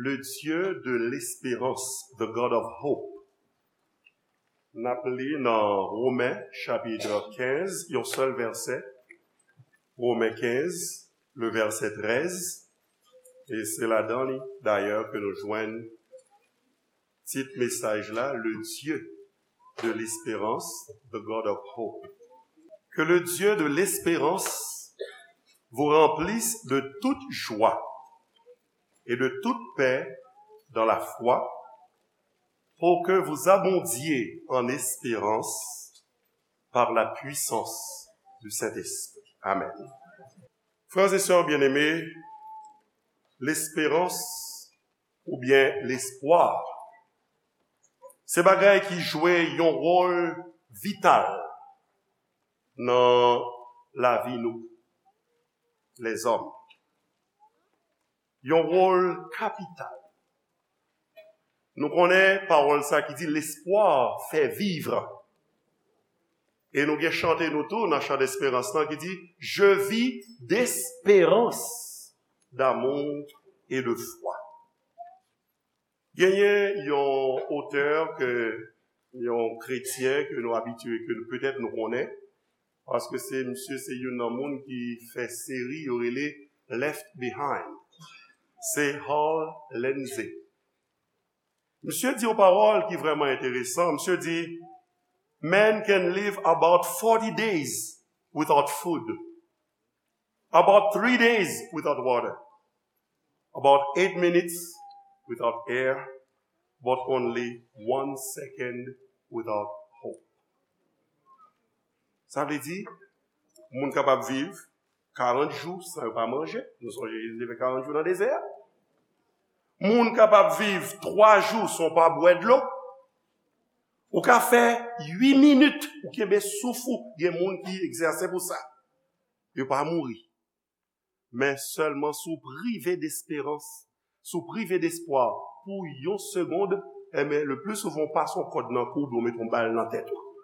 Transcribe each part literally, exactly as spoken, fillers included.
Le Dieu de l'espérance, the God of hope. N ap li nan Women, chapit kenz, yon sèl vèsè. Women kenz, le vèsè trèz. E se ladan li, dayè, ke nou jwenn tit mesaj la, Le Dieu de l'espérance, the God of hope. Que le Dieu de l'espérance vous remplisse de toute joie et de toute paix dans la foi, pour que vous abondiez en espérance par la puissance du Saint-Esprit. Amen. Frères et sœurs bien-aimés, l'espérance oubyen lespwa, se bagay ki jwe yon wòl vital nan lavi nou, lèzòm. Yon wòl kapital. Nou konnen pawòl sa ki di, l'espoir fait vivre. E nou gen chante nou tou nan chan desperans lan ki di, Je vis d'espérance, d'amour et de foi. Genyen yon otè ke, yon kretyen ke nou abitye, ke petèt nou konnen, paske se misye se youn nan moun ki fè seri yo rele Left Behind. Se Hal Lindsey. Misye di yon pawòl ki vrèman enteresan. Misye di, Man can live about forty days without food, about three days without water, about eight minutes without air, but only one second without hope. Sa vle di, moun kapab viv karant jou san yo pa manje. Nou sonje Jezi te fè karant jou nan dezè a. Moun kapab viv twa jou san w pa bwè dlo. Ou ka fè uit minit, ou kenbe souf ou. Gen moun ki egzèse pou sa. Yo pa mouri. Men sèlman si w prive desperans, si w prive despwa pou yon segond, enben, le pli souvan w pase yon kòd nan kou oubyen w mete yon bal nan tèt ou.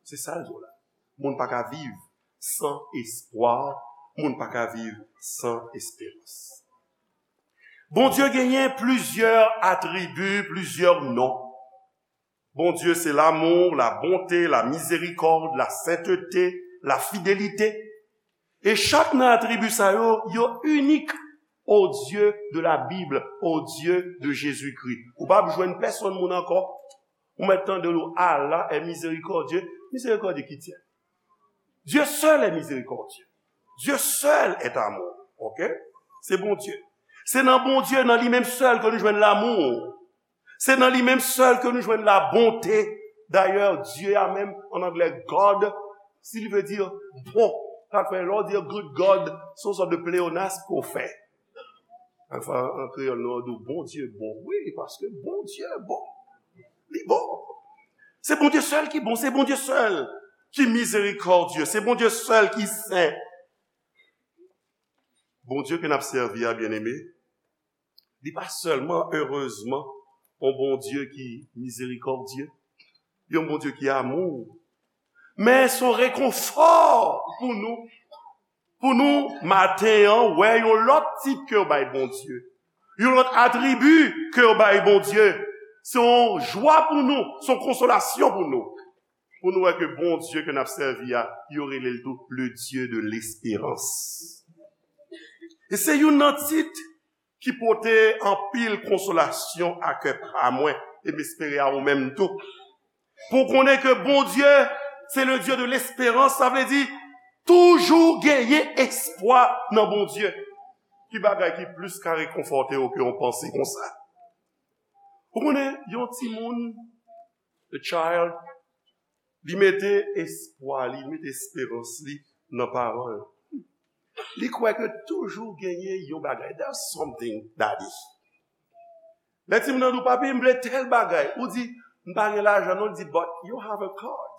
Se sa l di w la. Moun pa ka viv san espwa, moun pa ka viv san esperans. Bondye genyen plizyè atribi, plizyè non. Bondye se lanmou, la bonte, la mizerikòd, la sentete, la fidelite. E chak nan atribi sa yo, yo inik au Dieu de la Bible, au Dieu de Jésus-Christ. Ou p ap jwenn pèsonn moun ankò. Ou mèt tande l, Allah est miséricordieux. Miséricorde qui tient. Dieu seul est miséricordieux. Dieu seul est amour. Ok? Se Bondye. Se nan Bondye, nan li menm sèl ke nou jwenn lanmou. Se nan li menm sèl ke nou jwenn la bonte. Dayè, Dye a menm, an anglè, God, si li vle di bon, sa fè lè w di good God, se yon sòt de pleonasm ke w fè. Anfen, an kreyòl, nou di w Bondye bon. Wi, paske Bondye bon. Li bon. Se Bondye sèl ki bon, se Bondye sèl ki mizerikòdye, se Bondye sèl ki sen. Bondye ke n ap sèvi a, byeneme, li pa sèlman, erezman, yon Bondye ki mizerikòdye, yon Bondye ki amou, men se yon rekonfò pou nou, pou nou, maten an, wè yon lòt tit ke yo bay Bondye, yon lòt atribi ke yo bay Bondye. Se yon jwa pou nou, se yon konsolasyon pou nou. Pou nou wè ke Bondye ke n ap sèvi a, yo rele l tou le Dieu de l'espérance. E se youn nan tit ki pote anpil konsolasyon a kè pa mwen, e m espere a ou menm tou. Pou w konnen ke Bondye, se le Dieu de l'espérance, sa vle di toujou genyen espwa nan Bondye. Ki bagay ki plis ka rekonfòte w ke yon panse konsa? Ou konnen, yon timoun, a child, li mete espwa li, li mete esperans li nan paran l. Li kwè ke toujou genyen yon bagay. There's something, daddy. Lè timoun nan di w, "Papi, m vle tèl bagay." Ou di, "M pa gen lajan non." Li di, "But you have a card."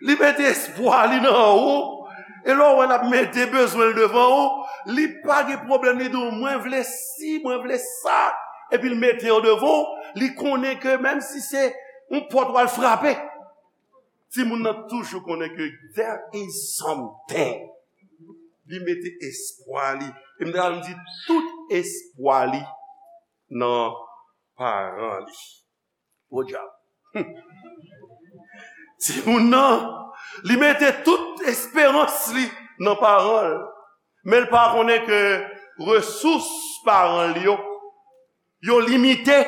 Li mete espwa li nan ou. E lè w wè l ap mete bezwen l devan ou, li pa gen pwoblèm, li di w, "Mwen vle si, mwen vle sa." Epi l mete yo devan ou, li konnen ke menm si se yon pòt w al frape, timoun nan toujou konnen ke there is something. Li mete espwa li E m ta di tout espwa li nan paran li. Podyab. Timoun nan, li mete tout esperans li nan paran l. Men l pa konnen ke resous paran l yo, yo limite.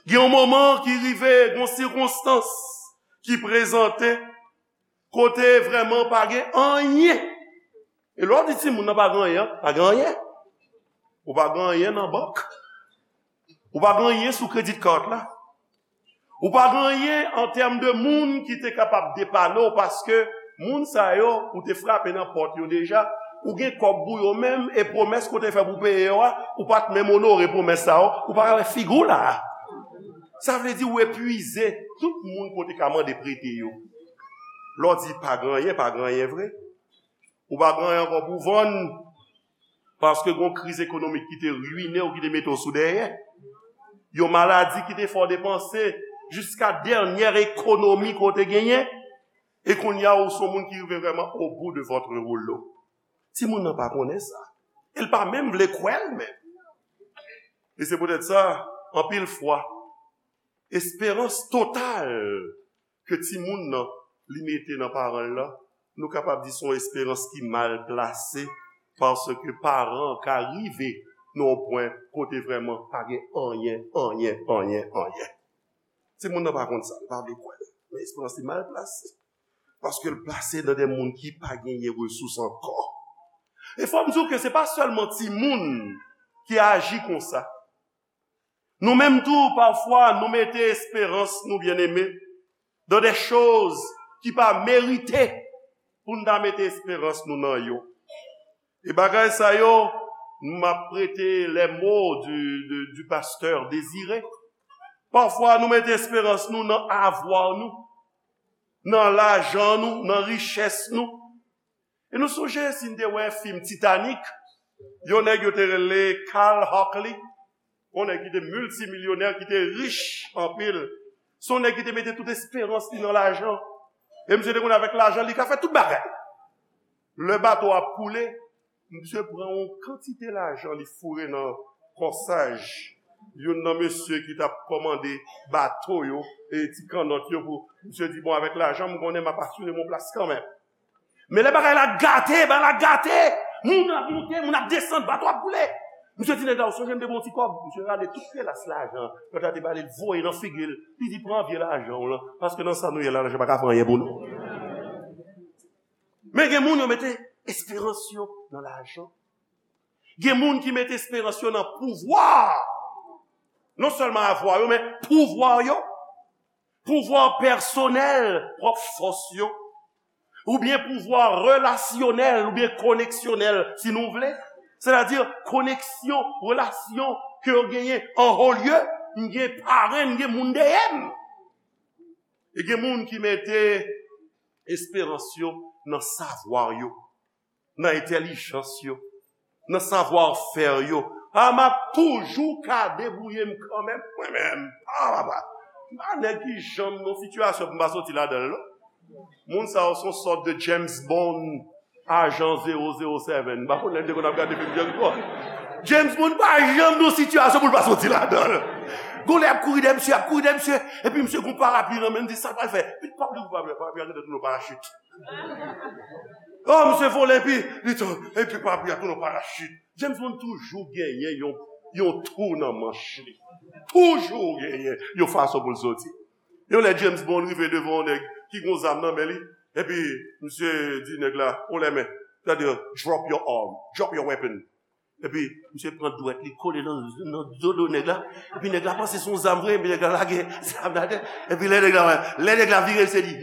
Gen yon moman ki rive, gen yon sikonstans ki prezante kote vrèman pa gen anyen. E lè w di timoun nan pa gen anyen, pa gen anyen. Ou pa gen anyen nan bank. Ou pa gen anyen sou credit card la. Ou pa gen anyen an tèm de moun ki te kapab depane w, paske moun sa yo, ou te frape nan pòt yo deja, ou gen kòb pou yo menm, e pwomès ke w te fè pou peye yo a, ou pa t menm onore pwomès sa yo, ou pa ka wè figi w la a. Sa vle di ou epwize tout moun ke w te ka mande prete yo. Lè w di pa gen anyen, pa gen anyen vre. Ou pa gen anyen ankò pou vann, paske gen yon kriz ekonomik ki te rwine w, ki te mete w sou dèyè. Yon maladi ki te fè w depanse jiska dènyè ekonomi ke w te genyen. E kounye a, ou se yon moun ki rive vrèman au bout de votre rouleau. Timoun nan pa konnen sa. E l pa menm vle kwè l menm. E se poutèt sa, anpil fwa, esperans total ke timoun nan li mete nan paran l lan, nou kapab di se yon esperans ki mal plase, paske paran an ka rive nan yon pwen kote vrèman pa gen anyen, anyen, anyen, anyen. Timoun nan pa konn sa, li pa vle kwè l. Men esperans li mal plase. Paske l plase nan de moun ki pa genyen resous ankò. E fò m di w ke se pa sèlman timoun ki aji konsa. Nou menm tou, pafwa, nou mete esperans nou, byeneme, dans des choses ki pa merite pou n ta mete esperans nou nan yo. E bagay sa yo, m ap prete les mots du, du, du pasteur Désiré. Pafwa, nou mete esperans nou nan avwa nou, nan lajan nou, nan richès nou. E nou sonje si n te wè fim Titanic, yon nèg yo te rele Carl Hockley, yon nèg ki te miltimilyonè, ki te rich anpil. Se yon nèg ki te mete tout esperans li nan lajan. E misye te konn avèk lajan li ka fè tout bagay. Lè bato a ap koule, misye pran yon kantite lajan li foure nan kòsaj youn nan mesye ki t ap kòmande bato yo e ti kannòt yo pou misye di, bon, avèk lajan m konnen m ap asire m yon plas kanmenm. Men lè bagay la gate, bagay la gate. Moun ap monte, moun ap desann, bato ap boule. Misye di nèg la, ou sonje m te ba w ti kòb? Misye rale tout pelas lajan nèg la te ba li, l voye nan figi l. Li di, pran vye lajan w lan, paske nan sa nou ye la, lajan pa ka fè anyen pou nou. Men gen moun yo mete esperans yo nan lajan. Gen moun ki mete esperans yo nan pouvwa. Non sèlman avwa yo, men pouvwa yo. Pouvwa pèsonèl, pwòp fòs yo. Oubyen pouvwa relasyonèl, oubyen koneksyonèl, si nou vle. Sètadi koneksyon, relasyon ke yo genyen an ho lye, m gen parenn, m gen moun dèyè m. E gen moun ki mete esperans yo nan savwa yo, nan entèlijans yo, nan savwa fè yo. A, m ap toujou ka debouye m kanmenm, mwen menm. A, papa. M pa nèg ki janm nan sitiyasyon pou m pa soti ladan l, non. Moun sa yo se yon sòt de James Bond, ajan zero zero seven. M pa konn lè n te konn ap gade fim James Bond. James Bond pa janm nan sitiyasyon pou l pa soti ladan l. Gon lè ap kouri dèyè misye, ap kouri dèyè misye, epi misye gon parapli nan men l, di sa l pral fè. Epi parapli, parapli, parapli a gentan tounen yon parachit. Oh, misye vole epi li tou, epi parapli a tounen yon parachit. James Bond toujou genyen yon, yon twou nan manch li. Toujou genyen yon fason pou l soti. Yon lè James Bond rive devan yon nèg ki gon zam nan men li, epi misye di nèg la, on lè men, sètadi, drop your arm, drop your weapon. Epi misye pran dwèt li kole nan, nan dodo nèg la. Epi nèg la panse se yon zam vre, epi nèg la lage zam la atè. Epi lè nèg la, lè nèg la vire, se li.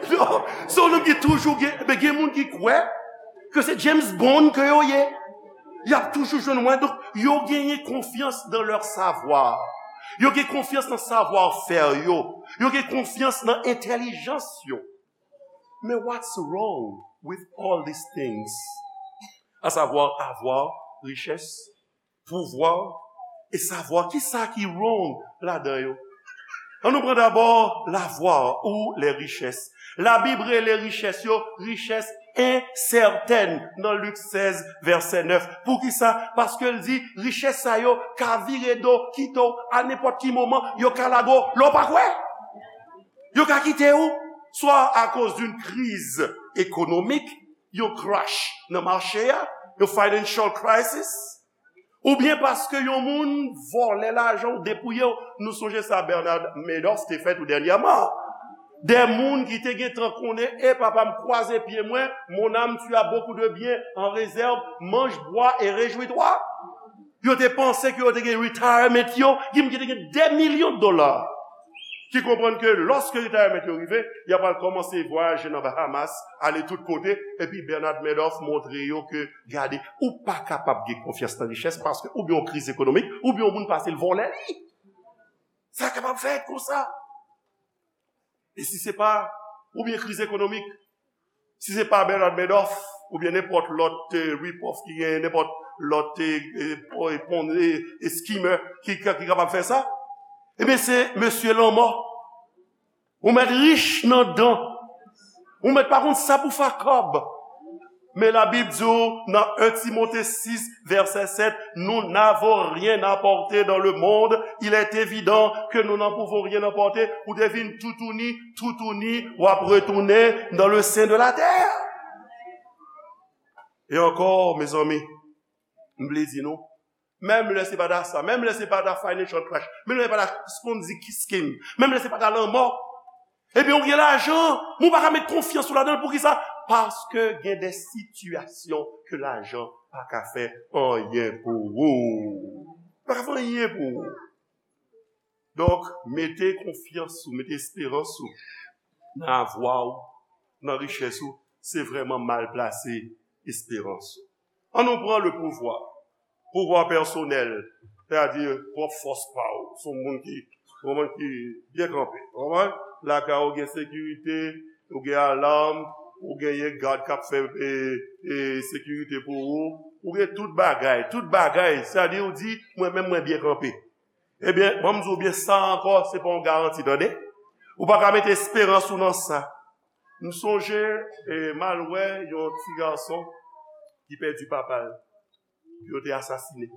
So, se yon nonm ki toujou gen, men gen moun ki kwè ke se James Bond ke yo ye. Y ap toujou jwenn mwen. Donk, yo genyen konfyans dans leur savoir. Yo gen konfyans nan savwa fè yo. Yo gen konfyans nan entèlijans yo. Men what's wrong with all these things? A savwa, avwa, richès, pouvwa, e savwa, kisa ki wrong ladan yo? An nou pran dabò lavwa ou lè richès. Labib rele richès yo richès ensètèn nan Lik sèz, vèsè nèf. Poukisa? Paske l di, richès sa yo ka vire do, kite w a nenpòt ki moman, yo ka lage w lè w pa kwè. Yo ka kite w, swa akoz d'une crise économique, yon crash nan mache a, yon financial crisis, oubyen paske yon moun vòlè lajan w, depouye w. Nou sonje sa Bernard Madoff te fè tou dènyèman. De moun ki te gentan konnen, e papa m, kwaze pye mwen, mon âme, tu as beaucoup de biens en réserve, mange, bois et réjouis-toi. Yo te panse ke yo te gen retirement yo, ki ki te gen de milyon dola. Ki konprann ke lòske retirement yo rive, y ap al kòmanse vwayaje nan Bahamas, ale tout kote, epi Bernard Madoff montre yo ke, gade, ou pa kapab gen konfyans nan richès, paske oubyen yon kriz ekonomik, oubyen yon moun pase l vòlè li. Sa kapab fèt konsa. E si se pa, oubyen kriz ekonomik, si se pa Bernard Madoff, oubyen nenpòt lòt eh, rip-off ki gen, nenpòt lòt eh, eh, pon- eh, eh, skimmer ki, ki, ki kapab fè sa, ebyen se mesye lanmò. Ou mèt rich nan dan. Ou mèt pa konn sa pou fè ak kòb. Men Labib di w nan en Timote sis, vèsè sèt, nous n'avons rien apporté dans le monde, il est évident que nous n'en pouvons rien apporter. Ou te vin toutouni, toutouni, w ap retounen dans le sein de la terre. E ankò, mezanmi, m vle di nou, menm lè se pa ta sa, menm lè se pa ta financial crash, menm lè se pa ta Ponzi scheme, menm lè se pa ta lanmò, ebyen, ou gen lajan, men ou pa ka met konfyans ou ladan l. Poukisa? Paske gen de sitiyasyon ke lajan pa ka fè anyen pou ou. Pa ka fè anyen pou ou. Donk, mete konfyans ou, mete esperans ou nan avwa ou, nan richès ou, se vrèman mal plase esperans ou. An nou pran le pouvwa. Pouvwa pèsonèl, sètadi pwòp fòs pa w. Se yon moun ki, yon moun ki byen kanpe. Ou konprann? Lakay ou gen sekirite, ou gen alam, ou genyen gad k ap fè e, e, sekirite pou ou, ou gen tout bagay, tout bagay, sètadi ou di, mwen menm mwen byen kanpe. Ebyen, ban m di w byen, sa ankò, se pa yon garanti, tande. Ou pa ka mete esperans ou nan sa. M sonje, e, m al wè yon ti gason ki pèdi papa l. Yo te asasine.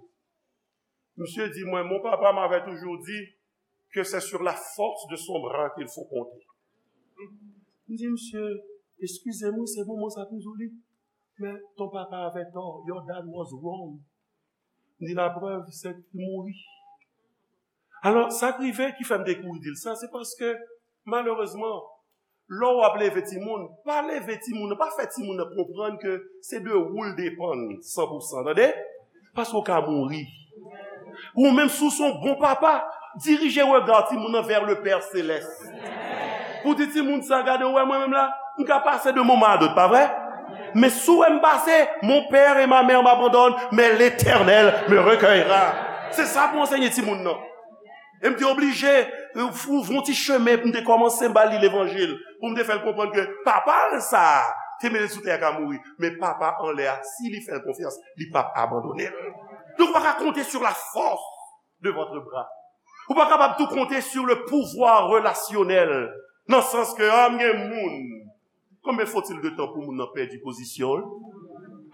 Misye di mwen, mon papa m'avait toujours dit que c'est sur la force de son bras qu'il faut compter. M di misye, eskize m, wi, se moman sa pou m di w li. Men ton papa avè tò, your dad was wrong. M di laprèv, se li mouri. Alò, sa k rive ki fè m te kouri di l sa, se paske, malerezman, lè w ap leve timoun, pa leve timoun nan, pa fè timoun nan konprann ke se de ou l depann san pou san, tande? Paske w ka mouri. Ou menm, si w se yon bon papa, dirije rega timoun nan vè le Pè Selès. Pou di timoun sa, gade, ou wè mwen menm la, m ka pase de moman a dòt, pa vre? Men si w wè m pase, mon père et ma mère m'abandonnent, mais l'Éternel me recueillera. Se sa pou ansenye timoun nan. E m te oblije, e, ouvri yon ti chemen pou m te kòmanse ba li levanjil, pou m te fè l konprann ke papa l sa a, te mete l sou tè a ka mouri, men papa anlè a, si li fè l konfyans, li p ap abandone l. Donk, ou pa ka konte sur la force de votre bras. Ou pa kapab tou konte sur le pouvoir relasyonèl, nan sans ke, a, m gen moun. Combien faut-il de temps pou moun nan pèdi pozisyon l?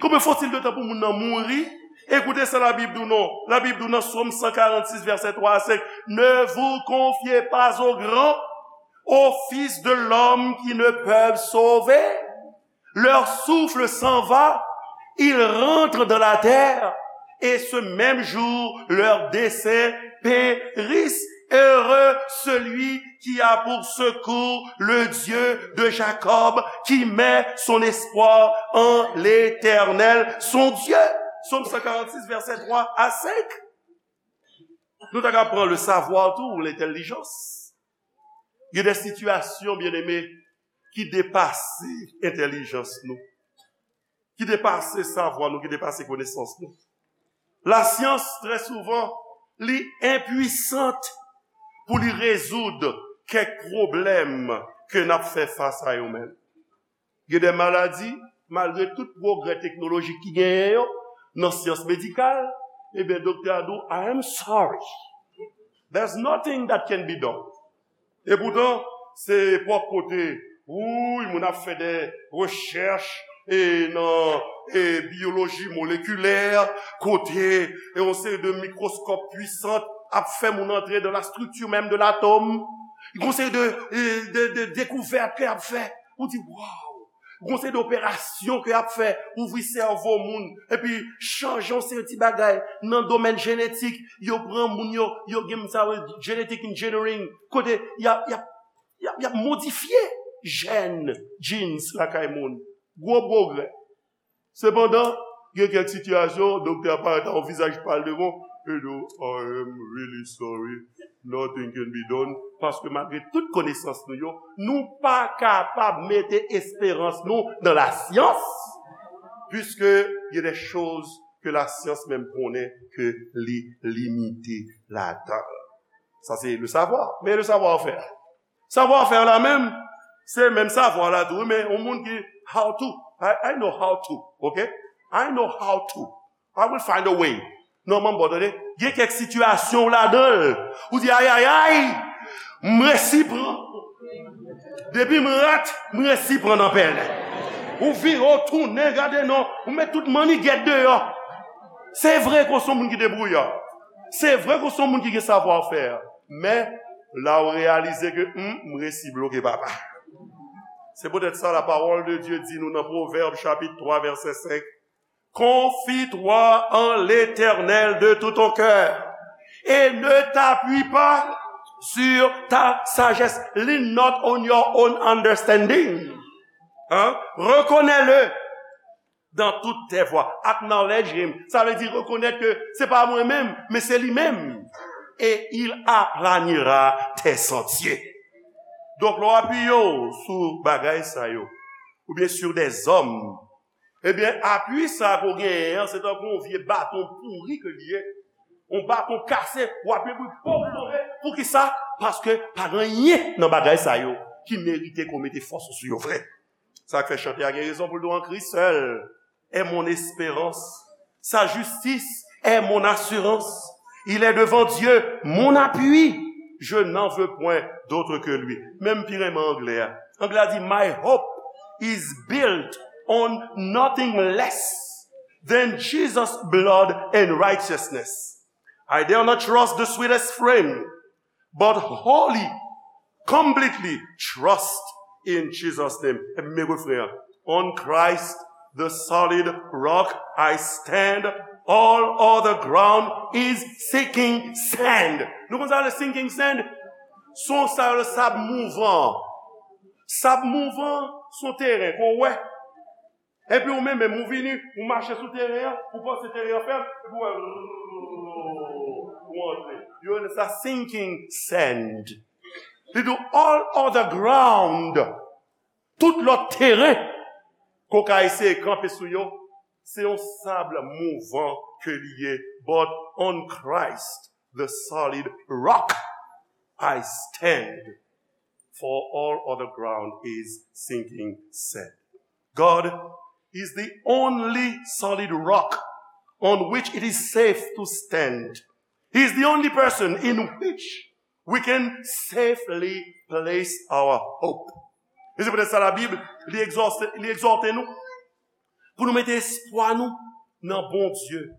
Combien faut-il de temps pou moun nan mouri? Ekoute sa Labib di w non. Labib di w nan Sòm san karannsis, vèsè twa a senk, ne vous confiez pas aux grands, aux fils de l'homme qui ne peuvent sauver. Leur souffle s'en va, ils rentrent dans la terre, et ce même jour, leurs desseins périssent. Heureux celui qui a pour secours le Dieu de Jacob, qui met son espoir en l'Éternel, son Dieu. Sòm san karannsis, vèsè twa a senk. Nou ta ka pran le savoir tou, ou lentèlijans. Gen de sitiyasyon, byeneme, ki depase entèlijans nou, ki depase savwa nou, ki depase konesans nou. Lasyans, trè souvan, li enpwisant pou li rezoud kèk pwoblèm ke n ap fè fas a yo menm. Gen de maladi, malgre tout pwogrè teknolojik ki genyen yo, nan syans medikal, ebyen, doktè a di w, "I am sorry. There's nothing that can be done." Epoutan, se epòk kote, wouy, moun ap fè de rechèch e nan e biyoloji molekilè, kote e yon seri de mikwoskòp pwisan ap fè moun antre dans la structure même de l'atome. Yon seri de, e, de, de dekouvèt ke ap fè. Ou di, waw! Gon seri de operasyon ke y ap fè, ouvri sèvo moun, epi chanje yon seri ti bagay nan domèn jenetik. Yo pran moun yo, yo gen sa yo rele genetic engineering, kote y ap, y ap, y ap, y ap modifye jèn, genes, lakay moun. Gwo pwogrè. Sepandan, gen kèk sitiyasyon, doktè a parèt ak yon vizaj pal devan, e di w, "I am really sorry, nothing can be done," paske malgre tout konesans nou yo, nou pa kapab mete esperans nou nan lasyans, puisque il y a des choses que la science même konnen ke li limite ladan. Sa se le savoir. Men le savoir-faire. Savoir-faire la menm, se menm savwa la tou, men yon moun ki how to. I, I know how to, ok? I know how to. I will find a way. Non, manm, bon, tande, gen kèk sitiyasyon w ladan l, ou di, "Ayayay, m resi pran. Depi m rat, m resi pran nan pèlen." Ou vire, ou tounen, gade non, ou met tout mannigèt deyò. Se vre ke w se yon moun ki debrouya. Se vre ke w se yon moun ki gen savoir-faire. Men, la ou reyalize ke, hmm, m resi bloke, papa. Se poutèt sa, la parole de Dieu di nou nan Pwovèb chapit twa, vèsè senk, "Confie-toi en l'Éternel de tout ton cœur et ne t'appuie pas sur ta sagesse." Lean not on your own understanding. Hein? Reconnais-le dans toutes tes voies. Acknowledge him. Sa vle di rekonèt ke se pa mwen menm, men se li menm. Et il aplanira tes sentiers. Donk, lè w apiye w sou bagay sa yo, oubyen sur des hommes, ebyen, apui sa ke w genyen an, se tankou yon vye baton pouri ke li ye. Yon baton kase, w apiye pou l pòp tonbe. Poukisa? Paske pa gen anyen nan bagay sa yo ki merite ke w mete fòs ou sou yo vre. Sa k fè chante a gen rezon pou l di w, "En Christ seul est mon espérance. Sa justice est mon assurance. Il est devant Dieu mon appui. Je n'en veux point d'autre que lui." Menm pi renmen anglè a. Anglè a di, "My hope is built on nothing less than Jesus' blood and righteousness. I dare not trust the sweetest frame, but wholly, completely trust in Jesus' name." Epi men refren an. "On Christ, the solid rock, I stand. All other ground is sinking sand." Nou konn sa le sinking sand? Son sa yo le sab mouvan. Sab mouvan, son teren, kon wè. Epi ou menm, menm ou vini, ou mache sou teren an, ou panse teren an fèb, epi ou wè, ou antre. Yo rele sa sinking sand. Li di w, "All other ground," tout lòt teren ke w ka eseye kanpe sou yo, se yon sab mouvan ke li ye. "But on Christ, the solid rock, I stand. For all other ground is sinking sand." God is the only solid rock on which it is safe to stand. He is the only person in which we can safely place our hope. E se poutèt sa Labib, li egzòte, li egzòte nou pou nou mete espwa nou nan Bondye.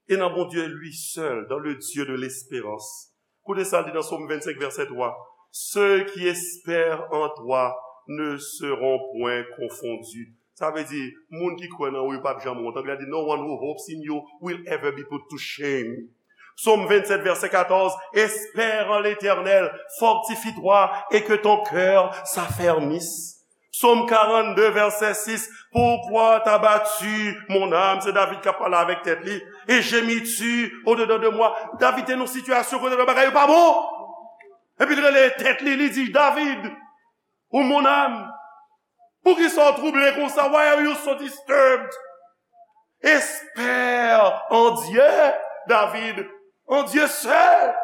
Et dans Bon Dieu lui seul, dans le Dieu de l'espérance. Koute sa l di nan Sòm vennsenk, vèsè twa. "Ceux qui espèrent en toi ne seront point confondus." Sa vle di, moun ki kwè nan ou yo p ap janm wont. Anglè a di, "No one who hopes in you will ever be put to shame." Sòm vennsèt, vèsè katòz, "Espère en l'Éternel, fortifie-toi et que ton cœur s'affermisse." Sòm karannde, vèsè sis, "Pourquoi t'as battu mon âme?" Se David k ap pale avèk tèt li. "Et gémis-tu au-dedans de moi?" David te nan yon sitiyasyon kote bagay yo pa bon. Epi l rele tèt li, li di, "David, ou mon âme, poukisa w twouble konsa? Why are you so disturbed?" Espère en Dieu, David, en Dieu seul,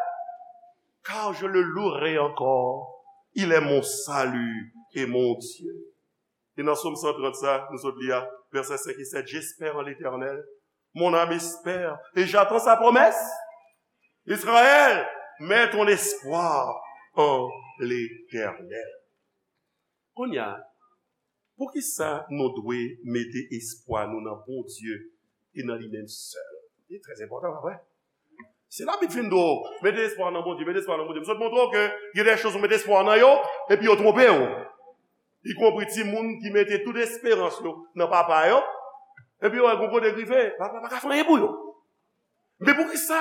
car je le louerai encore. Il est mon salut et mon Dieu. E nan Sòm san trant sa, nou sot li a, vèsè senk e sèt, "J'espère en l'Éternel, mon âme espère, et j'attends sa promesse. Israël, mets ton espoir en l'Éternel. Kounye a, poukisa nou dwe mete espwa nou nan Bondye e nan li menm sèl? Li trè enpòtan, pa vre? Si Labib fin di w, mete espwa w nan Bondye, mete espwa w nan Bondye. M sot montre w ke gen de choz ou mete espwa w nan yo, epi yo twonpe w. Ikonpri timoun ki mete tout esperans yo nan papa yo, epi yo wè gon kote k rive, papa pa ka fè anyen pou yo. Men poukisa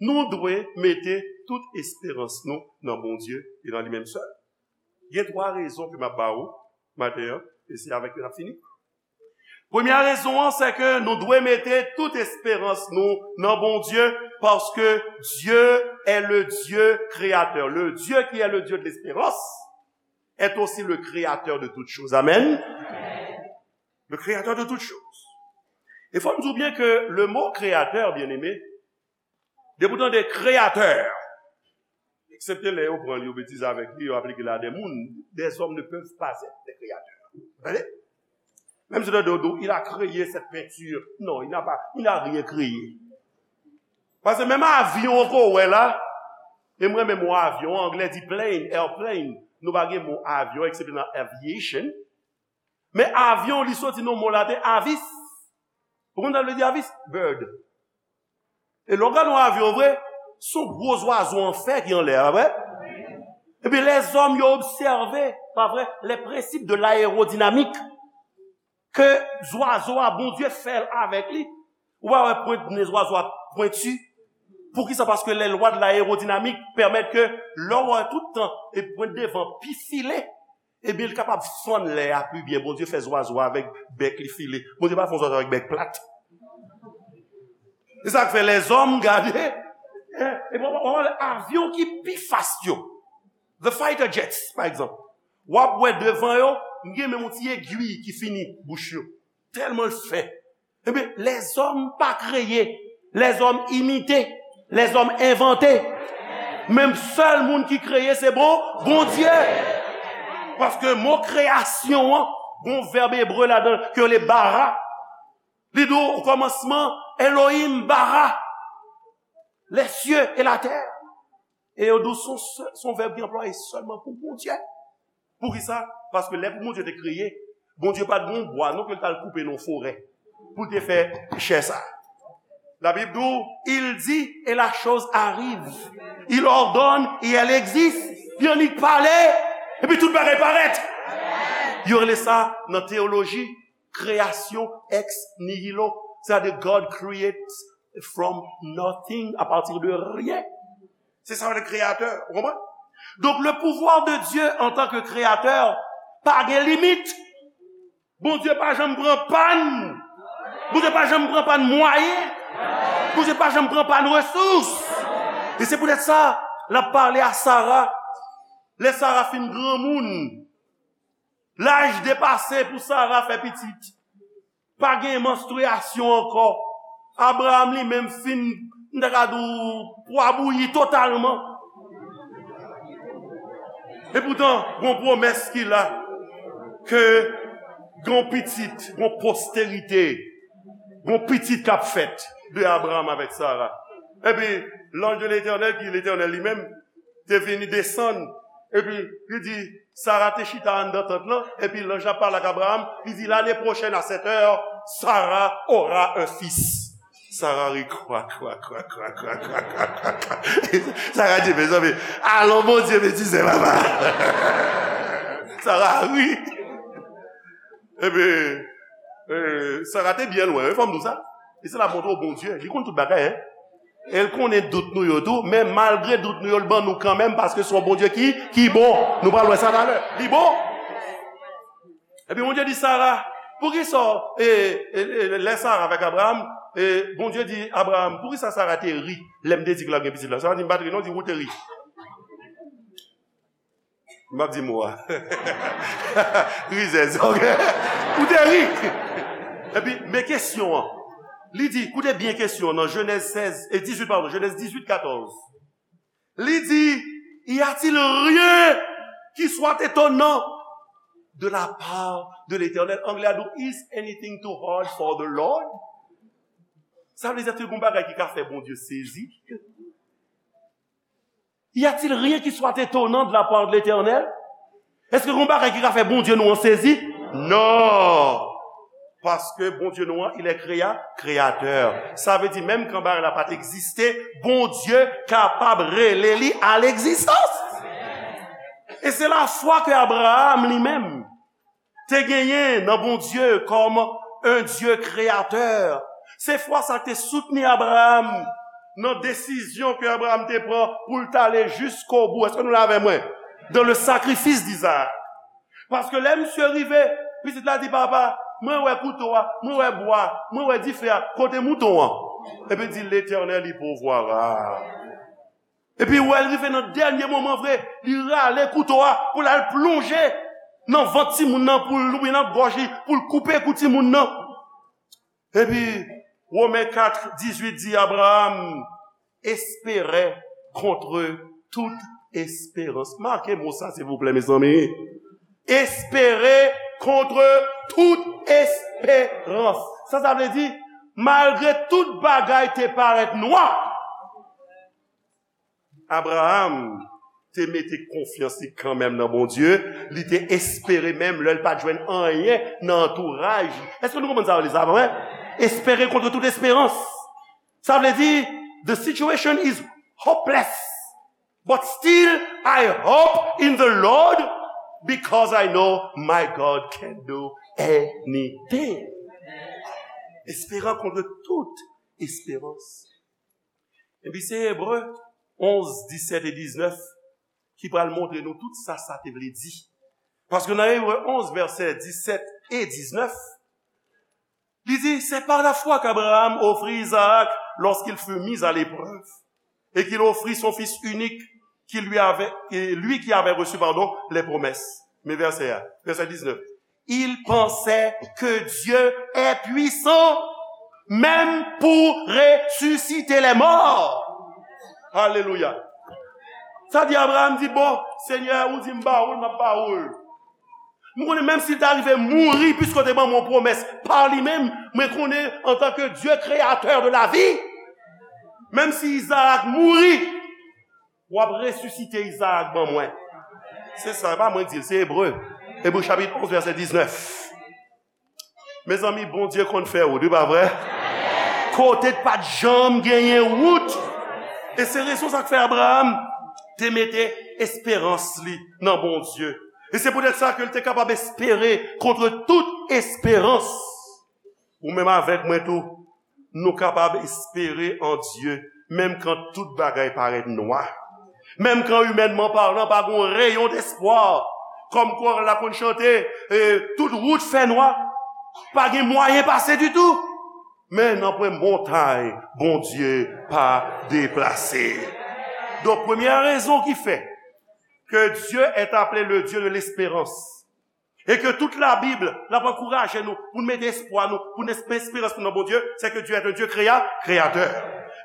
nou dwe mete tout esperans nou nan Bondye e nan li menm sèl? Gen twa rezon ke m ap ba ou maten an, e se avèk yo n ap fini. Premye rezon an, se ke nou dwe mete tout esperans nou nan Bondye, paske Dieu est le Dieu créateur. Le Dieu qui est le Dieu de l'espérance est aussi le créateur de toutes choses. Amen. Le créateur de toutes choses. E fò n di w byen ke le mot créateur, bien-aimé, depi w tande kreyatè, eksepte lè yo pran l, yo betize avèk li, yo aplike l a de moun, des hommes ne peuvent pas être des créateurs. Tande? Menm si w tande yo di w, il a créé cette peinture. Non, il n'a pas, il n'a rien créé. Paske menm avyon ke w wè la, e m renmen mo avyon, anglè di plane, airplane. Nou pa gen mo avyon, eksepte nan aviation. Men avyon, li soti nan mo laten avis. Ou konn sa l vle di avis? Bird. E lè w gade yon avyon vre, se yon gwo zwazo an fè ki anlè a, pa vre? Ebyen, lèzòm yo obsève, pa vre, les principes de l'aérodynamique, ke zwazo a, Bondye fè l avèk li. Ou pa wè pwent nen zwazo a pwenti? Poukisa? Paske les lois de l'aérodynamique permettent ke lè w wè tout tan e pwent devan pi file, ebyen, li kapab fann lè a pi byen. Bondye fè zwazo a avèk bèk li file. Bondye pa fè yon zwazo avèk bèk plat. Se sa k fè lèzòm gade, hein, e w ap wè avyon ki pi fast yo, the fighter jets, pa egzanp. W ap wè devan yo, gen menm yon ti egwi ki fini bouch yo. Tèlman l fen. Ebyen, lèzòm pa kreye, lèzòm imite, lèzòm envante. Menm sèl moun ki kreye, se bon, Bondye. Paske mo kreyasyon an, gon vèb ebre ladan l, ke yo rele bara. Li di w, o kòmansman, Elohim bara, les cieux et la terre. E yo di w, se yon sè-, se yon vèb ki anplwaye sèlman pou Bondye. Poukisa? Paske lè pou Bondye te kreye, Bondye pa t gen yon bwa non ke l t al koupe nan yon forè pou l te fè chè sa. Labib di w, il dit et la chose arrive. Il ordonne et elle existe. Li annik pale, epi tout bagay parèt. Yo rele sa nan teyoloji kreyasyon ex nihilo. Sètadi, God creates from nothing, à partir de rien. Se sa le kreyatè, ou konprann? Donk, le pouvoir de Dieu en tant que créateur pa gen limit. Bondye pa janm pran pàn. Bondye pa janm pran pàn mwayen. Bondye pa janm pran pàn resous. E se poutèt sa, l ap pale a Sara. Lè Sara fin granmoun, laj depase pou Sara fè pitit. Pa gen manstriyasyon ankò. Abraram li menm fin, m ta ka di w, pwa bouyi totalman. E poutan, gon pwomès ki la, ke gon pitit, gon posterite, gon pitit k ap fèt de Abraram avèk Sara. Epi, lanj de Letènèl, ki Letènèl li menm, te vini desann, epi li di, Sara te chita anndan tant lan, epi lanj la pale ak Abraram, li di, l'année prochaine, à cette heure, Sarah aura un fils. Sara ri, kwa, kwa, kwa. Sara di, mezanmi, alon Bondye betize, papa. Sara ri. Epi, eh, Sara te byen lwen, wi, fò m di w sa. E se la montre w Bondye, li konn tout bagay, hein. E l konnen dout nou yo tou, men malgre dout nou yo, l ban nou kanmenm, paske se yon Bondye ki, ki bon. Nou pral wè sa talè. Li bon. Epi Bondye di Sara, poukisa, e, e, e, lè Sara avèk Abraram, e, Bondye di Abraram, poukisa Sara te ri lè m te di ke l ap gen pitit la? Sara di, m pa t ri non, di, ou te ri. M ap di mo a. Rizèz, ok? Ou te ri. Epi, men kesyon an. Li di, koute byen kesyon an nan Jenèz sèz, e dizuit, padon, Jenèz dizuit, katòz. Li di, y a-t-il rien qui soit étonnant de la part de l'Éternel? Anglè a di, is anything too hard for the Lord? Sa vle di, èske gon bagay ki ka fè Bondye sezi? Y a-t-il rien qui soit étonnant de la part de l'Éternel? Èske gon bagay ki ka fè Bondye nou an sezi? Non! Paske Bondye nou an, il est créa-, créateur. Sa vle di, menm kan bagay la pa t egziste, Bondye kapab rele li a legzistans. E se lafwa ke Abraham li menm te genyen nan Bondye kòm un Dieu créateur. Se fwa sa k te soutni Abraham nan desizyon ke Abraham te pran pou l t ale jiskobou. Èske nou la avè mwen? Dans le sacrifice d'Isaac. Paske lè misye rive, pitit la di, "Papa, mwen wè kouto a, mwen wè bwa, mwen wè dife a, kote mouton an?" Epi l di, "L'Éternel y pourvoira." Epi wè l rive nan dènye moman vre, li rale kouto a pou l al plonje nan vant timoun nan, pou l, oubyen nan gòj li, pou l koupe kou timoun nan. Epi, Women kat dizuit di, Abraham espérait contre toute espérance. Make mo sa, silvouplè, mezanmi. Espérer contre toute espérance. Sa, sa vle di, malgre tout bagay te parèt nwa, Abraham te mete konfyans li kanmenm nan Bondye. Li te espere menm lè l pa t jwenn anyen nan antouraj li. Èske nou konprann sa yo li sa, pa vre? Espérer contre toute espérance. Sa vle di, the situation is hopeless, but still I hope in the Lord because I know my God can do anything. Espérant contre toute espérance. Epi se Ebre onz, disèt e diznèf ki pral montre nou tout sa sa te vle di. Paske nan Ebre onz, vèsè disèt e diznèf, li di, c'est par la foi qu'Abraham offrit Isaac lorsqu'il fut mis à l'épreuve, et qu'il offrit son fils unique, qui lui avait, et lui qui avait reçu, pardon, les promesses. Men vèsè a, vèsè diznèf. Il pensait que Dieu est puissant même pour ressusciter les morts. Alelouya. Sa di Abraham di, "Bon, Senyè, ou di m ba ou l, m ap ba ou l." M konnen menm si l ta rive mouri, piske w te ban mwen yon pwomès pa li menm, mwen konnen antanke Dye kreyatè de lavi, menm si Izarak mouri, w ap resisite Izarak ban mwen. Se sa, e pa mwen k di l, se Ebre. Ebre chapit onz, vèsè diznèf. Mezanmi, Bondye konn fè wout, wi, pa vre? Kote t pa t janm genyen wout. E se rezon sa k fè Abraham te mete esperans li nan Bondye. E se poutèt sa ke l te kapab espere contre toute espérance. Ou menm avèk mwen tou, nou kapab espere an Dye, menm kan tout bagay parèt nwa. Menm kan, imènman palan, pa gen yon reyon despwa. Kòm kò la konn chante, e, tout wout fè nwa. Pa gen mwayen pase ditou. Men nanpwen montay Bondye pa deplase. Donk, premyè rezon ki fè que Dieu est appelé le Dieu de l'espérance, e ke tout Labib, l ap ankouraje nou pou n mete espwa nou, pou n espe-, esperans nou nan Bondye, se ke Dye est un Dieu créa-, créateur.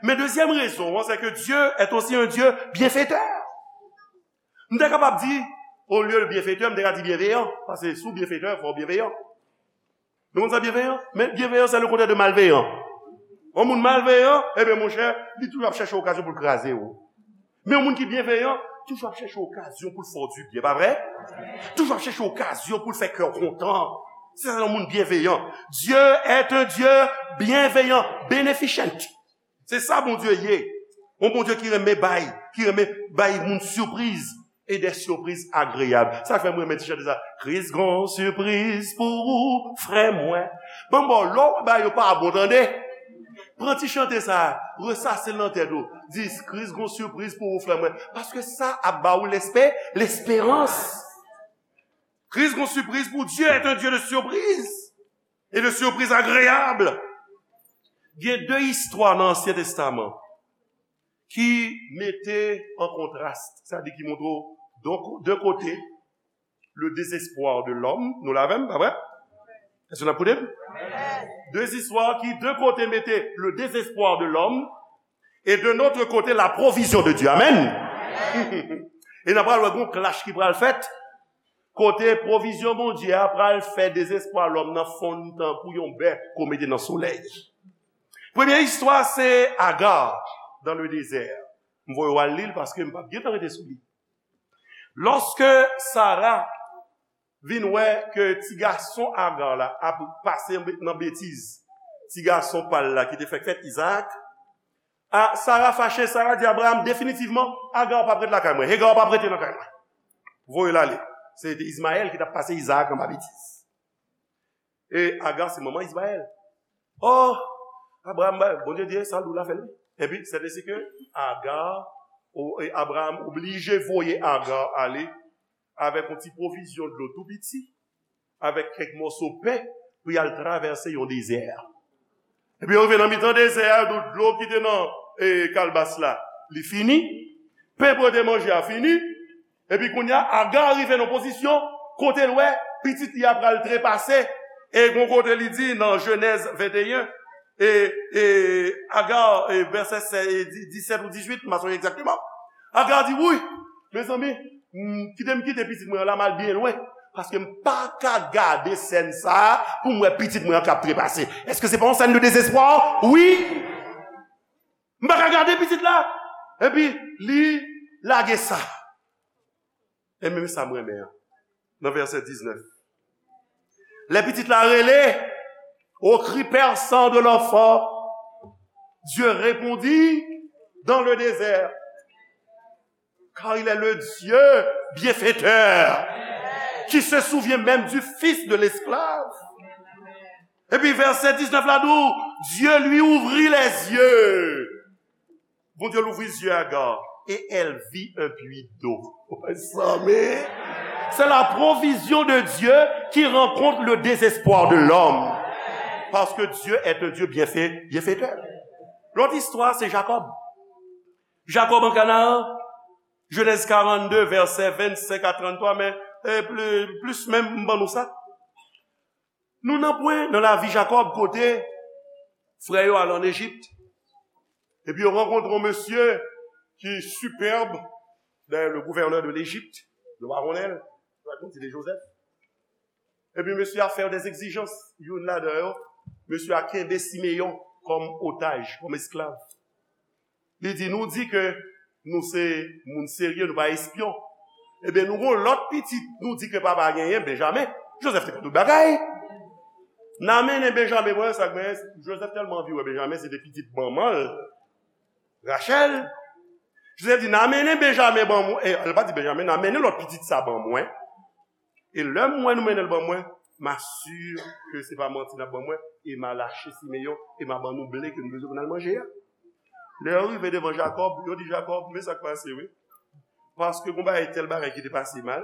Men dezyèm rezon an, se ke Dye est aussi un Dieu bienfaiteur. M te kapab di, olye de byenfetè, m te ka di byenveyan, paske si w byenfetè, fò w byenveyan. Nou konn sa byenveyan? Men byenveyan, se le kontrè de malveyan. Yon moun malveyan, ebyen, monchè, li toujou ap chèche okazyon pou l kraze w. Men yon moun ki byenveyan, toujou ap chèche okazyon pou l fè w dibyen, pa vre? Toujou ap chèche okazyon pou l fè kè w kontan. Se sa yon moun byenveyan. Dieu est un Dieu bienveillant, beneficent. Se sa Bondye ye. Yon Bondye ki renmen bay, ki renmen bay moun sipriz, e de sipriz agreyab. Sa fè m renmen ti chante sa. Kris gon sipriz pou ou, frè mwen. Bon, bon, lè w wè bagay yo pa bon, tande. Pran ti chante sa, resase l nan tèt ou. Di, Kris gon sipriz pou ou, frè mwen. Paske sa ap ba ou lespe-, lesperans. Kris gon sipriz pou Dieu est un Dieu de surprise et de surprise agréable. Gen de istwa nan Ansyen Testaman ki mete an kontras, sa di ki montre w de, de kote, le désespoir de l'homme, nou la avè m, pa vre? Èske n ap koute m? De istwa ki, de kote, mete le désespoir de l'homme, et de notre côté, la provision de Dieu. Amen. E n ap pral wè gon clash ki pral fèt. Kote pwovizyon Bondye a pral fè dezespwa lòm nan fonn tankou yon bè ke w mete nan solèy. Premye istwa se Aga dans le désert. M voye w al li l paske m p ap gentan rete sou li. Lòske Sara vin wè ke ti gason Agar la ap pase nan betiz ti gason pa l la ki te fèk fèt, Izaak, a, Sara fache, Sara di Abraham, definitivman, Agar p ap ret lakay mwen, Hagar p ap rete lakay mwen. Voye l ale. Se te Izmayèl ki t ap pase Izaak anba betiz. E Agar se manman Izmayèl. Oh, Abraham, Bondye di, sa l di w la, fè l wi. Epi, sètesi ke Agar, o, e Abraham oblije voye Agar ale avèk yon ti pwovizyon dlo tou piti, avèk kèk mòso pen, pou y al travèse yon dezè. Epi yo rive nan mitan dezè a, tout dlo ki te nan, e, kalbas la, li fini. Pen pou yo te manje a fini. Epi kounye a, Aga rive nan pozisyon kote l wè pitit li a pral trepase. E gon kote li di nan Jenèz venteyen, e, e Aga, e, vèsè sèz, e, di- disèt ou dizuit, m pa sonje egzakteman. Aga di, wi, mezanmi, m, kite m kite pitit mwen an la, m al byen lwen. Paske m pa ka gade sèn sa a pou m wè pitit mwen an k ap trepase. Èske se pa yon sèn de dezespwa? Wi! M pa ka gade pitit la. Epi, li lage sa. E menm sa m renmen an. Nan vèsè diznèf. Lè pitit la rele, au cri perçant de l'enfant, Dieu répondit dans le désert, car il est le Dieu bienfaiteur, qui se souvient même du fils de l'esclave. Epi vèsè diznèf la di w, Dieu lui ouvrit les yeux. Bondye louvri zye Aga, et elle vit un puits d'eau. Mezanmi, c'est la provision de Dieu qui rencontre le désespoir de l'homme. Parce que Dieu est un Dieu bienfait, bienfaiteur. Lòt istwa, se Jakòb. Jakòb an Kanaan, Jenèz karannde, vèsè vennsenk a tranntwa, men, e, pli- plis menm, m ban nou sa. Nou nan pwen nan lavi Jakòb kote frè yo al ann Ejip. Epi yo rankontre yon mesye ki sipèb, dayè, le gouverneur de l'Égypte, le roi Ronel, rakonte de Joseph. Epi mesye a fè yo des exigences. Youn ladan yo, mesye a kenbe Simeyon kòm otaj, kòm esklav. Li di, nou di ke nou se moun serye, nou pa espyon. Ebyen, nou gon lòt pitit, nou di ke papa genyen, Benjamen. Joseph te konn tout bagay. N a mennen Benjamen, mwen, sa k genyen, Joseph tèlman anvi wè Benjamen, se te pitit manman l, Rachèl. Joseph di, n a mennen Benjamen ban mwen, e, l pa di Benjamen, n a mennen lòt pitit sa ban mwen. E lè m wè nou mennen l ban mwen, m asire ke se pa manti n ap ban mwen, e m a lache Simeyon, e m a ban nou ble ke nou bezwen pou n al manje a. Lè yo rive devan Jakòb, yo di Jakòb, men sa k pase, wi. Paske gon bagay, tèl bagay ki te pase mal,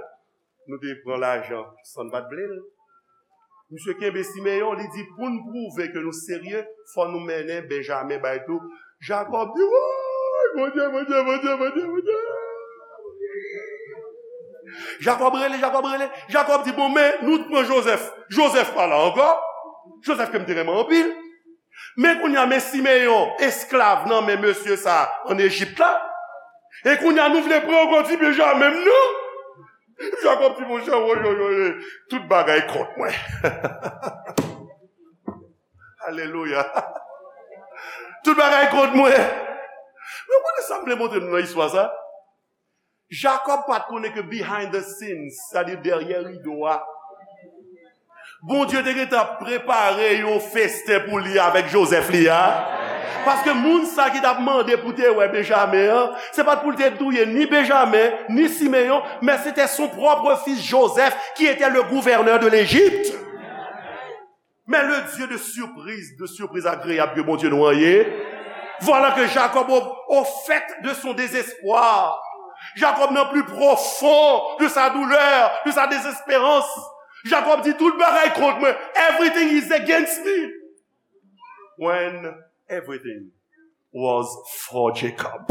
nou te pran lajan san n pa t vle l. Misye kenbe Simeyon, li di, pou n pwouve ke nou serye, fò nou mennen Benjamen bay tou. Jakòb di, woy, Bondye, Bondye, Bondye, Bondye, Bondye. Jakòb rele, Jakòb rele. Jakòb di, bon, men nou t pran Joseph. Joseph pa la ankò. Joseph ke m te renmen anpil. Men kounye a, men Simeyon, esklav nan men mesye sa a ann Ejip la. E kounye a, nou vle pran ankò ti Benjamen m nan. Jakòb di, monchè, woy, woy, woy, tout bagay kont mwen. Alelouya. Tout bagay kont mwen. Men w konnen sa m vle montre nou nan istwa sa? Jakòb pa t konnen ke behind the scenes, sètadi dèyè rido a, Bondye te gentan ap prepare yon festen pou li avèk Joseph li a. Paske moun sa ki t ap mande pou te wè Benjamen an, se pa t pou l te touye ni Benjamen, ni Simeyon, mais c'était son propre fils Joseph qui était le gouverneur de l'Égypte. Mais le Dieu de surprise, de surprise agréable ke Bondye nou an ye. Voilà que Jacob, au, au fait de son désespoir, Jacob nan pli pwofon de sa doulè, de sa dezesperans, Jacob di, tout bagay kont mwen. Everything is against me. When everything was for Jacob.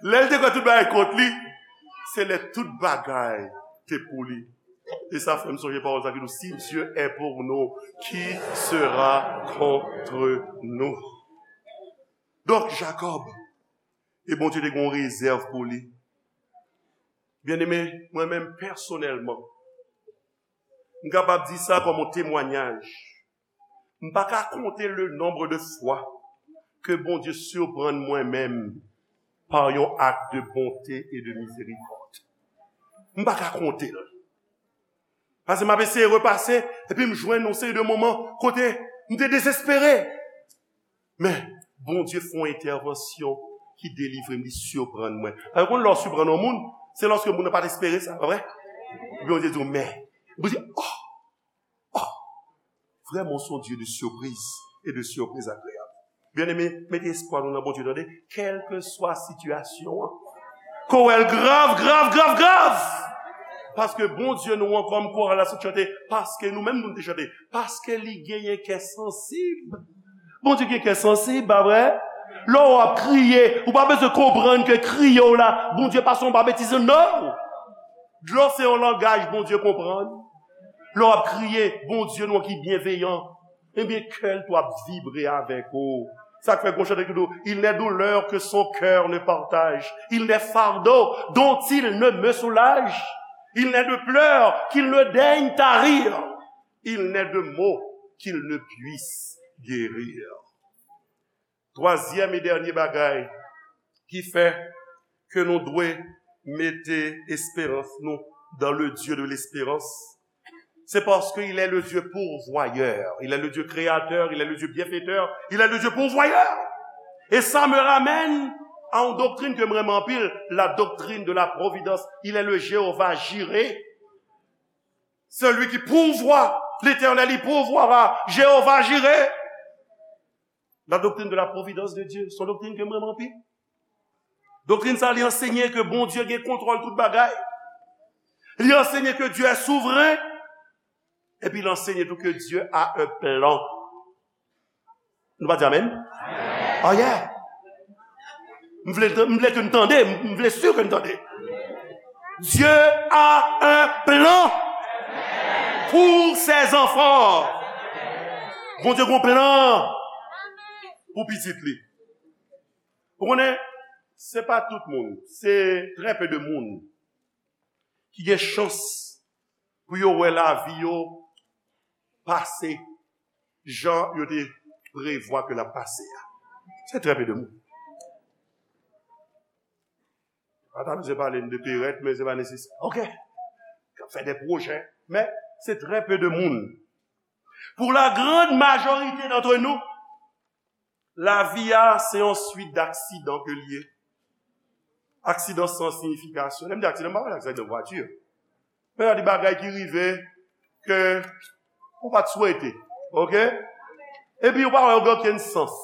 Lè l te kwè tout bagay kont li, se lè tout bagay te pou li. E sa fè m sonje pawòl sa ki di, si Dieu est pour nous, qui sera contre nous? Donk, Jacob, e Bondye te gen yon rezèv pou li. Byeneme, mwen menm pèsonèlman, m kapab di sa kòm yon temwanyaj. M pa ka konte le nombre de fwa ke Bondye siprann mwen menm pa yon ak de bonte e de mizerikòd. M pa ka konte l. Paske m ap eseye repase, epi m jwenn yon seri de moman kote m te dezespere. Men, Bondye fè yon entèvansyon ki delivre m, li siprann mwen. Paske konn lè w siprann yon moun, se lòske moun nan pa t espere sa, pa vre? Epi Bondye di w, men. Bondye, oh, oh, vraiment, c'est un Dieu de surprise et de surprise agréable. Bien-aimé, mete espwa nou nan Bondye, tande, kèlkeswa sitiyasyon an. Ke w wè l grav, grav, grav, grav. Paske Bondye nou an, kòm koral la sot chante, paske nou menm nou te chante, paske li genyen kè sansib. Bondye gen kè sansib, pa vre? Lè w ap kriye, ou pa bezwen konprann ke kriye w la, Bondye pa se yon babetiz, non. Dlo se yon langaj Bondye konprann. Lè w ap kriye, Bondye nou an ki byenveyan, ebyen, kè l tou ap vibre avèk ou. Sa k fè gon chante ki di w, il n'est douleur que son cœur ne partage, il n'est fardeau dont il ne me soulage, il n'est de pleurs qu'il ne daigne tarir, il n'est de maux qu'il ne puisse guérir. Twazyèm e dènye bagay ki fè ke nou dwe mete esperans nou dans le Dieu de l'espérance, c'est parce qu'il est le Dieu pourvoyeur, il est le Dieu créateur, il est le Dieu bienfaiteur, il est le Dieu pourvoyeur. Et ça me ramène à une doctrine que m renmen anpil, la doctrine de la providence. Il est le Jéhovah Jiré, celui qui pourvoit, l'Éternel, il pourvoira, Jéhovah Jiré. La doctrine de la providence de Dieu, se yon doktrin ke m renmen anpil. Doktrin sa, li ansenye ke Bondye gen kontwòl tout bagay. Li ansenye ke Dieu est souverain. Epi li ansenye tou ke Dieu a un plan. Nou pa di amèn? Oh yeah. M vle, m vle ke n tande, m vle si ke n tande. Dieu a un plan pour ses enfants. Bondye gen yon plan pou pitit li. Ou konnen, se pa tout moun, se trè pe de moun ki gen chans pou yo wè lavi yo pase jan yo te prevwa ke l ap pase a. Se trè pe de moun. Pa ta bezwen pale m de perèt, men se pa nesesè. Ok. K ap fè de pwojè, men se trè pe de moun. Pour la grande majorité d'entre nous, lavi a, se yon swit d'aksidan ke l ye. Aksidan san siyifikasyon. Lè m di aksidan, m pa pale aksidan vwati. Men sa di bagay ki rive ke ou pa t swete. Ok? Epi ou pa wè yo gen okenn sans.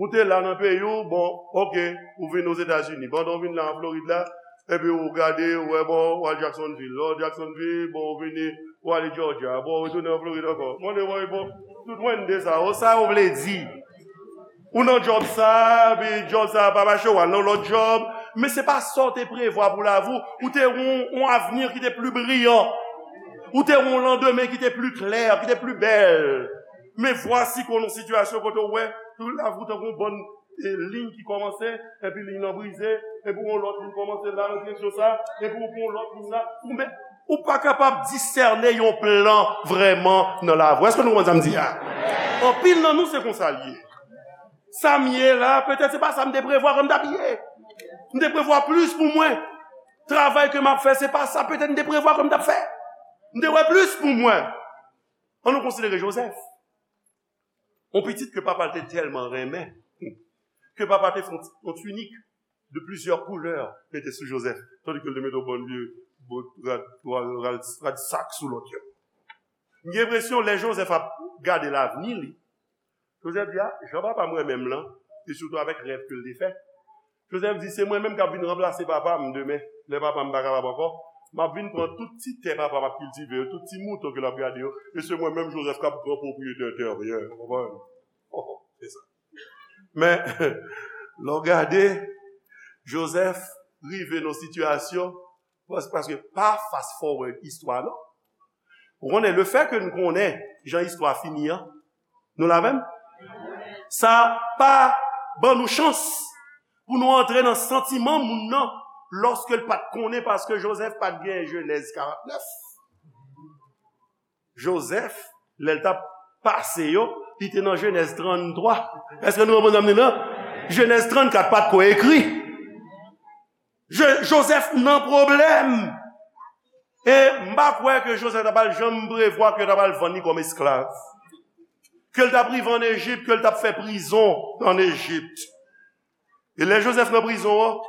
Ou te la nan peyi w, bon, ok, ou vin Ozetazini. Pandan w vin la an Florid la, epi ou gade, ou wè, bon, ou al Jacksonville. Lè w Jacksonville, bon, ou vini, ou ale Georgia. Bon, ou retounen an Florid ankò. Mande, bon, bon, tout mwen de sa. O, sa yo vle di. Ou nan djòb sa, epi djòb sa pa mache, ou al nan lòt djòb. Men se pa sa w te prevwa pou lavi w. Ou te wè yon, yon avni ki te pli briyan. Ou te wè yon landemen ki te pli klè, ki te pli bèl. Men vwasi ke w nan sitiyasyon kote w wè, tout lavi w tankou yon bann, e, liy ki kòmanse, epi liy nan brize, epi yon lòt liy kòmanse la nan direksyon sa, epi w pran yon lòt liy la, ou men, ou pa kapab disène yon plan vrèman nan lavi w. Èske nou konprann sa m di a? Anpil nan nou se konsa l ye. Sa m ye la, petèt se pa sa m te prevwa ke m t ap ye. M te prevwa plis pou mwen. Travay ke m ap fè, se pa sa petèt m te prevwa ke m t ap fè. M te wè plis pou mwen. Ann nou konsidere Jozèf. Yon pitit ke papa l te tèlman renmen, ke papa te fè yon, yon tinik de plizyè koulè mete sou Jozèf, tandi ke l te mete yon bann vye bòt rad, rad, rad, rad sak sou lòt yo. M gen enpresyon, lè Jozèf ap gade lavni li, Jozèf di, a, jan papa m renmen m lan, e sitou avèk rèv ke l te fè, Jozèf di, se mwen menm k ap vin ranplase papa m demen, lè papa m pa kapab ankò. M ap vin pran tout ti tè papa m ap kiltive yo, tout ti mouton ke l ap gade yo, e se mwen menm Jozèf k ap gran pwopriyetè tè yo, w konprann? Se sa. Men, lè w gade, Jozèf rive nan sitiyasyon, pas-, paske pa fast forward istwa, non. Ou konnen, lefètke n konnen jan istwa fini an, nou la avè m? Sa pa ban nou chans pou nou antre nan santiman moun nan lòske l pa t konnen, paske Jozèf pa t gen Jenèz karant nèf. Jozèf, lè l t ap pase yo, Li te nan Jenèz tranntwa. Èske nou konprann sa m di la? Jenèz trannkat pa t ko ekri. Je- Jozèf nan pwoblèm. E m pa kwè ke Jozèf ta pral janm prevwa ke yo ta pral vann li kòm esklav. Ke l t ap rive ann Ejip, ke l t ap fè prizon ann Ejip. E lè Jozèf nan prizon an,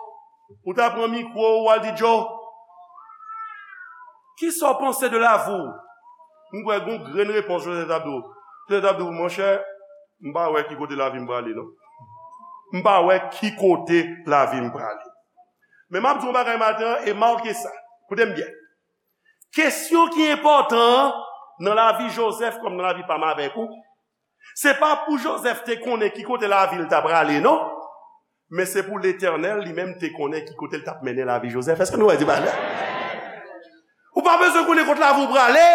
ou ta pran mikwo ou al di Joe, kisa w panse de lavi w? M kwè gon grenn repons Jozèf t ap di w. Jozèf t ap di w, monchè, m pa wè ki kote lavi m prale non. M pa wè ki kote lavi m prale. Men m ap di w yon bagay maten an e make sa. Koute m byen. Kesyon ki enpòtan an nan lavi Jozèf kòm nan lavi pa m avèk ou, se pa pou Jozèf te konnen ki kote lavi l ta prale non, men se pou Letènèl li menm te konnen ki kote l t ap mennen lavi Jozèf. Èske nou wè di bagay? Ou pa bezwen konnen kote lavi w prale.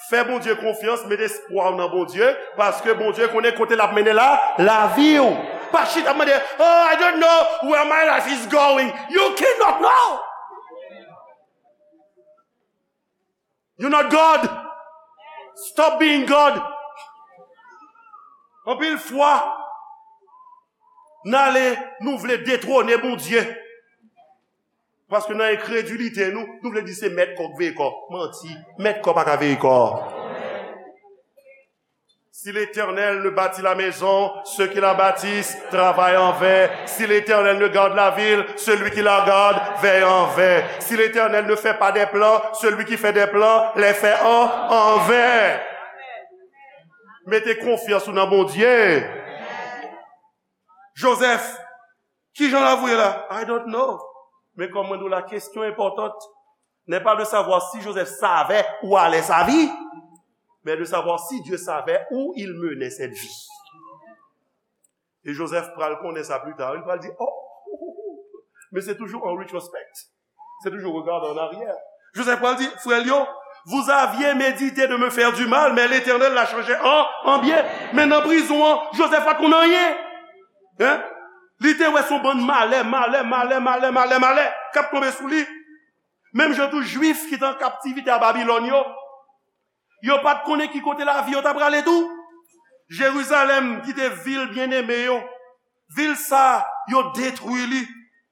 Fè Bondye konfyans, met espwa w nan Bondye, paske Bondye konnen kote l ap mennen la lavi w. Pa chita ap mande, oh, I don't know where my life is going. You cannot know. You're not God. Stop being God. Anpil fwa, n ale, nou vle detwone Bondye. Paske nan enkredilite nou, nou vle di se mèt kò k veye kò. Manti, mèt kò pa ka veye kò. Si l'Éternel ne bâtit la maison, ceux qui la bâtissent travaillent en vain. Si l'Éternel ne garde la ville, celui qui la garde veille en vain. Si l'Éternel ne fait pas des plans, celui qui fait des plans les fait en, en vain. Mete konfyans ou nan Bondye. Jozèf, kijan lavi w ye la? I don't know. Men kòm mwen di w la, kesyon enpòtant n'est pas de savoir si Joseph savait où allait sa vie, mais de savoir si Dieu savait où il menait cette vie. E Joseph pral konnen sa pli ta, li pral di, oh, men se toujou an retrospect. Se toujou regade an aryè. Joseph pral di, frè l yo, vous aviez médité de me faire du mal, mais l'Éternel l'a changé en, en bien. Men nan prizon an, Joseph pa t konn anyen. Hein? Li te wè se yon bann malè, malè, malè, malè, malè, malè k ap tonbe sou li. Menm jan tou Jwif ki te an kaptivite a Babilòn yo, yo pa t konnen ki kote lavi yo ta prale tou. Jerizalèm ki te vil byeneme yo, vil sa, yo detwi li.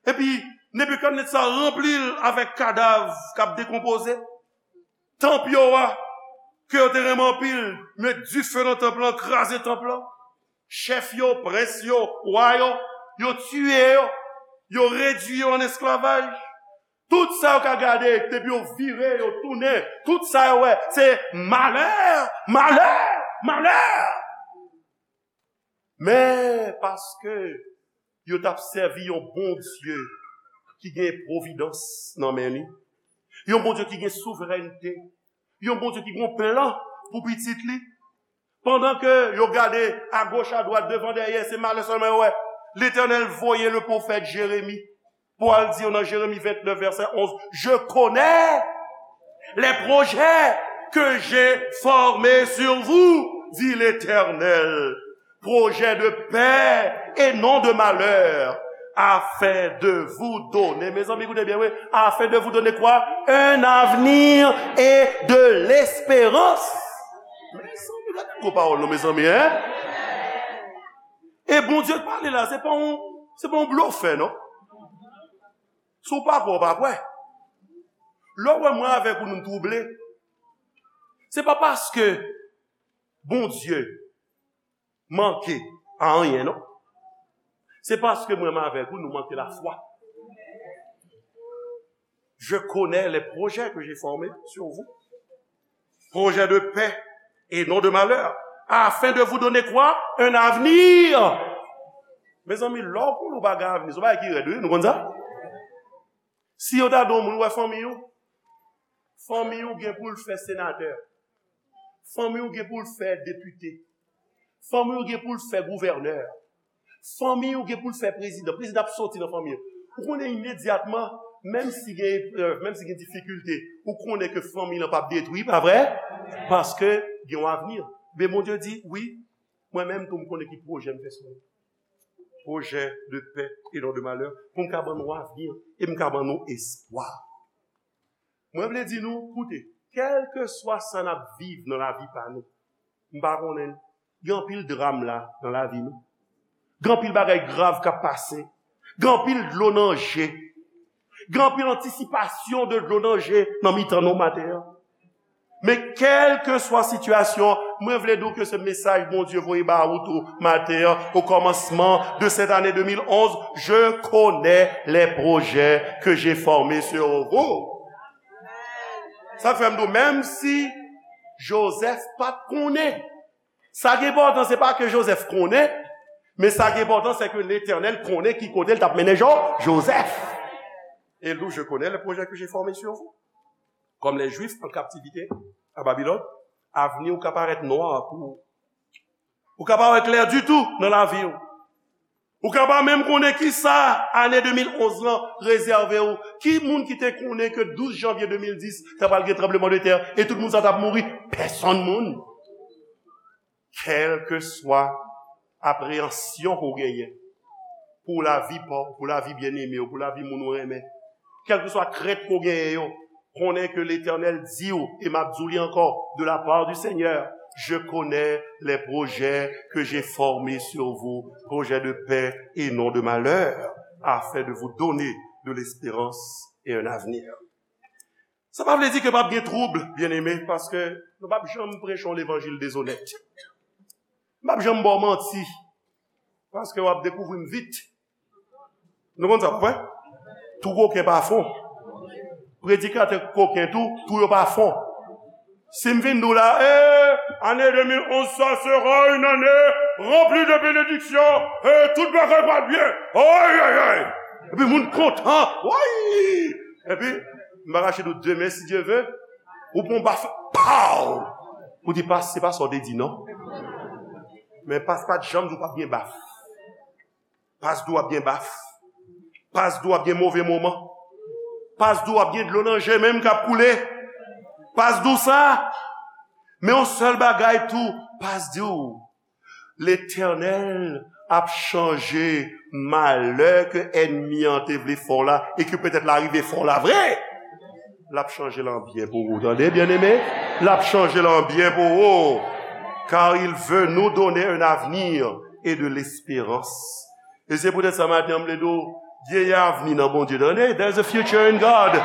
Epi Nebikadnetza ranpli l avèk kadav k ap dekonpoze. Tanp yo a, ke yo te renmen anpil, met dife nan tanp lan, kraze tanp lan. Chèf yo, prens yo, wa yo, yo tiye yo, yo redui yo an esklavaj. Tout sa yo ka gade, depi yo vire, yo tounen, tout sa yo wè, se malè, malè, malè. Men paske yo t ap sèvi yon Bondye ki gen pwovidans nan men li, yon Bondye ki gen souverènte, yon Bondye ki gen yon plan pou pitit li. Pandan ke yo gade agoch, adwat, devan, dèyè, se malè sèlman yo wè. Letènèl voye le pwofèt Jeremi pou al di yo nan Jeremi vennèf, vèsè onz, je connais les projets que j'ai formés sur vous, dit l'Éternel, projets de paix et non de malheur, afin de vous donner, mezanmi, koute byen, wi, afin de vous donner quoi? Un avenir et de l'espérance. Mezanmi, gade gwo pawòl non, mezanmi, hein? E Bondye k pale la, se pa yon, se pa yon blofè, non. Si w pa kwè, w pa kwè. Lè w wè mwen avèk ou, nou twouble, se pa paske Bondye manke a anyen, non. Se paske mwen menm avèk ou, nou manke lafwa. Je connais les projets que j'ai formés sur vous. Projets de paix et non de malheur. Afin de vous donner quoi? Un avenir. Mezanmi, lè w konnen w pa gen avni, se yon bagay ki rèd, wi, nou konn sa? Si yo ta di yon moun, wè fanmi w, fanmi w gen pou l fè senatè. Fanmi w gen pou l fè depite. Fanmi w gen pou l fè gouvènè. Fanmi w gen pou l fè prezidan. Prezidan ap soti nan fanmi w. Ou konnen imedyatman, menm si gen eprèv, menm si gen difikilte, ou konnen ke fanmi lan p ap detwi, pa vre? Paske gen yon avni. Men Bondye di, wi, mwen menm tou m konnen ki pwojè m fè sou nou. Pwojè de pè e non de malè, pou m ka ban nou avni e m ka ban nou espwa. Mwen vle di nou, koute, kèlkeswa sa n ap viv nan lavi pa nou, M pa konnen. Gen anpil dram la nan lavi nou. Gen anpil bagay grav k ap pase. Gen anpil dlo nan je. Gen anpil antisipasyon de dlo nan je nan mitan nou maten an. Men kèlkeswa sitiyasyon, mwen vle di w ke se mesaj Bondye voye ba ou tou maten an, au commencement de cette année deux mille onze, je connais les projets que j'ai formés sur vous. Sa fè m di w, menm si Joseph pa t konnen, sa ki enpòtan, se pa ke Joseph konnen, men sa ki enpòtan, se ke Letènèl konnen ki kote l t ap mennen Jo-, Joseph. Et nous, je connais le projet que j'ai formé sur vous. Comme les Juifs en captivité à Babylone, avni w ka parèt nwa pou ou. Ou ka pa wè klè ditou nan lavi w. Ou ka pa menm konnen ki sa ane de mil onz lan rezève w. Ki moun ki te konnen ke douz janvye de mil dis, ta pral gen tranbleman de tè e tout moun sa t ap mouri? Pèsonn moun. Kèlkeswa apreyansyon ke w genyen pou lavi pa w, pou lavi byeneme w, pou lavi moun ou renmen, kèlkeswa krent ke w genyen yo, konnen ke Letènèl di w, e m ap di w li ankò, de la part du Seigneur, je connais les projets que j'ai formés sur vous, projets de paix et non de malheur, afin de vous donner de l'espérance et un avenir. Sa pa vle di ke p ap gen twoub, byeneme, paske nou p ap janm preche yon levanjil dezonèt. M p ap janm ba w manti, paske w ap dekouvri m vit. Nou konn sa, pa vre? Tou koken pa fon. Predikatè koken tou, tou yo pa fon. Si m vin di w la, eh, année deux mille onze, ça sera une année remplie de bénédictions, eh, tout bagay pral byen. Ay, ay, ay. Epi moun kontan. Woy! Epi, m pa kache di w, demen, si Dye ve, ou pran baf, pow! Ou di, pas, se pa sa w te di, non. Men pas pa t janm di w p ap gen baf. Pas di w ap gen baf. Pas di w ap gen move moman. Pas di w ap gen dlo nan je menm k ap koule. Pas di w sa. Men yon sèl bagay tou, pas di w, Letènèl ap chanje malè ke ènmi an te vle fè w la e ke petèt l a rive fè w la vre. L ap chanje l an byen pou ou, tande, byeneme? L ap chanje l an byen pou ou. Car il veut nous donner un avenir et de l'espérance. E se poutèt sa maten an, m vle di w, gen avni nan Bondye, tande? There's a future in God.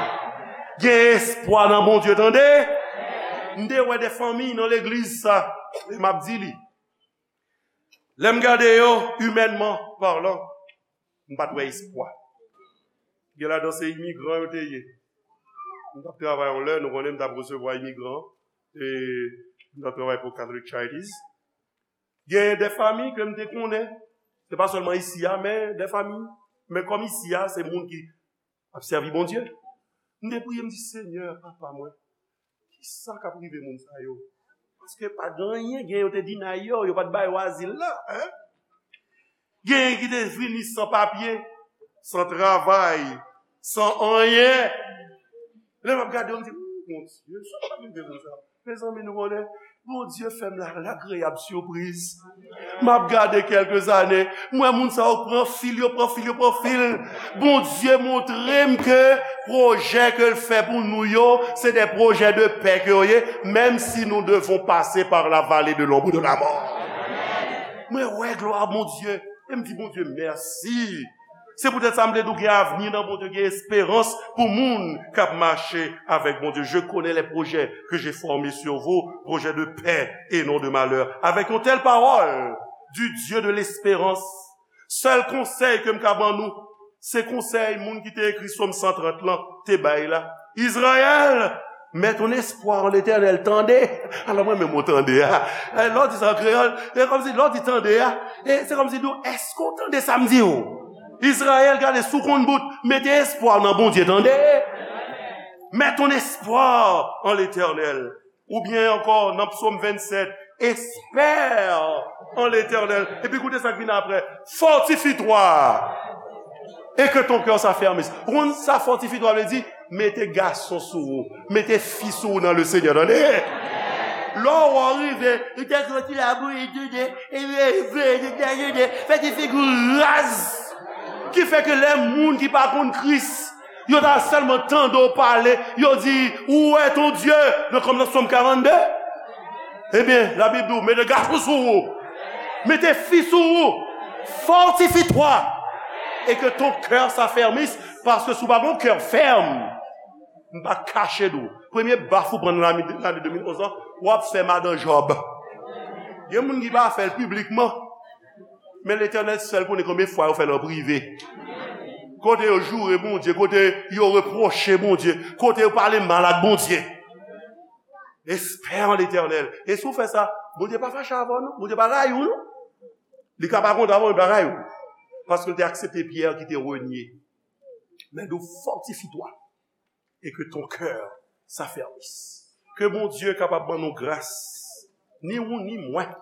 Gen espwa nan Bondye, tande? M te wè de fanmi nan legliz sa, e m ap di li. Lè m gade yo, imènman palan, m pa t wè espwa. Gen ladan se imigran yo te ye. M t ap travay yon lè, nou konnen m t ap resevwa imigran, e m t ap travay pou Catholic Charities. Gen de fanmi ke m te konnen, se pa sèlman isi a, men de fanmi, men kòm isi a, se moun ki ap sèvi Bondye. M te priye, m di, Senyè, Papa mwen, kisa k ap rive moun sa yo? Paske pa gen anyen, gen yo te deny yo, yo pa t ba yo azil la, en? Gen ki te vini san papye, san travay, san anyen. Lè m ap gade yo, m di, "Ou, Bondye, sa k ap rive moun sa?" Mezanmi, nou konnen, Bondye fè m la, lagreyab sipriz. M ap gade kèlke zane, m wè moun sa yo pran fil, yo pran fil, yo pran fil. Bondye montre m ke pwojè ke l fè pou nou yo, se de pwojè de pè ke yo ye, menm si nou devon pase pa la vale de lonb de lamò. Mwen wè glwa Bondye, e m di Bondye mèsi. Se poutèt sa m vle di w gen avni nan Bondye, gen esperans pou moun k ap mache avèk Bondye. Je connais les projets que j'ai formés sur vous, projets de paix et non de malheur. Avèk yon tèl pawòl du Dieu de l'espérance, sèl konsèy ke m ka ban nou, se konsèy moun ki te ekri Sòm san trant lan te bay la. Izrayèl, mets ton espoir en l'Éternel, tande. Alò, mwen menm, mwen tande a. Eh, lè w di sa an kreyòl, se kòmsi lè w di tande a, e se kòmsi di w, èske w tande sa m di w? Izrayèl, gade, si w konn bout, mete espwa w nan Bondye, tande. Mets ton espoir en l'Éternel. Oubyen ankò, nan Psaume vingt-sept, espère en l'Éternel. Epi koute sa k vin apre, fortifie-toi et que ton cœur s'affermisse. Ou konn sa fortifie-toi vle di? Mete gason sou ou, mete fi sou ou nan le Seigneur, tande. Lè w rive, ou te soti la bouyi toude, epi vle te te toude, fè ti figi w raz. Ki fè ke lè moun ki pa konn Kris, yo ta sèlman tande w pale, yo di, "Où est ton Dieu?" Nan kòm nan Sòm karannde. Ebyen, Labib di w, mete gason sou ou. Mete fi sou ou. Fortifie-toi. Et que ton cœur s'affermisse, paske si w pa gen yon kè fèm, m pa kache di w, premye baf ou pran nan lane, lane de mil onz lan, w ap fè madan Jòb. Gen moun ki pa fè l piblikman, men Letènèl sèl konnen konbyen fwa yo fè l an prive. Kote yo joure Bondye, kote yo repwoche Bondye, kote yo pale mal ak Bondye. Espère en l'Éternel. E si w fè sa, Bondye pa fache avè w, non. Bondye pa rayi w, non. Li ka pa kontan avè w, li pa rayi w. Paske l te aksepte Pyè ki te renye. Men di w, fortifie-toi et que ton cœur s'affermisse. Ke Bondye kapab ban nou gras, ni ou ni mwen,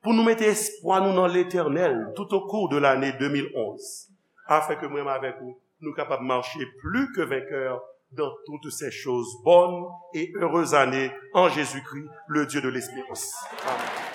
pou nou mete espwa nou nan Letènèl tout au cours de l'année deux mille onze, afin que mwen avèk ou, nou kapab mache plus que vainqueur dans toutes ces choses. Bonne et heureuse année en Jésus-Christ, le Dieu de l'espérance. Amen.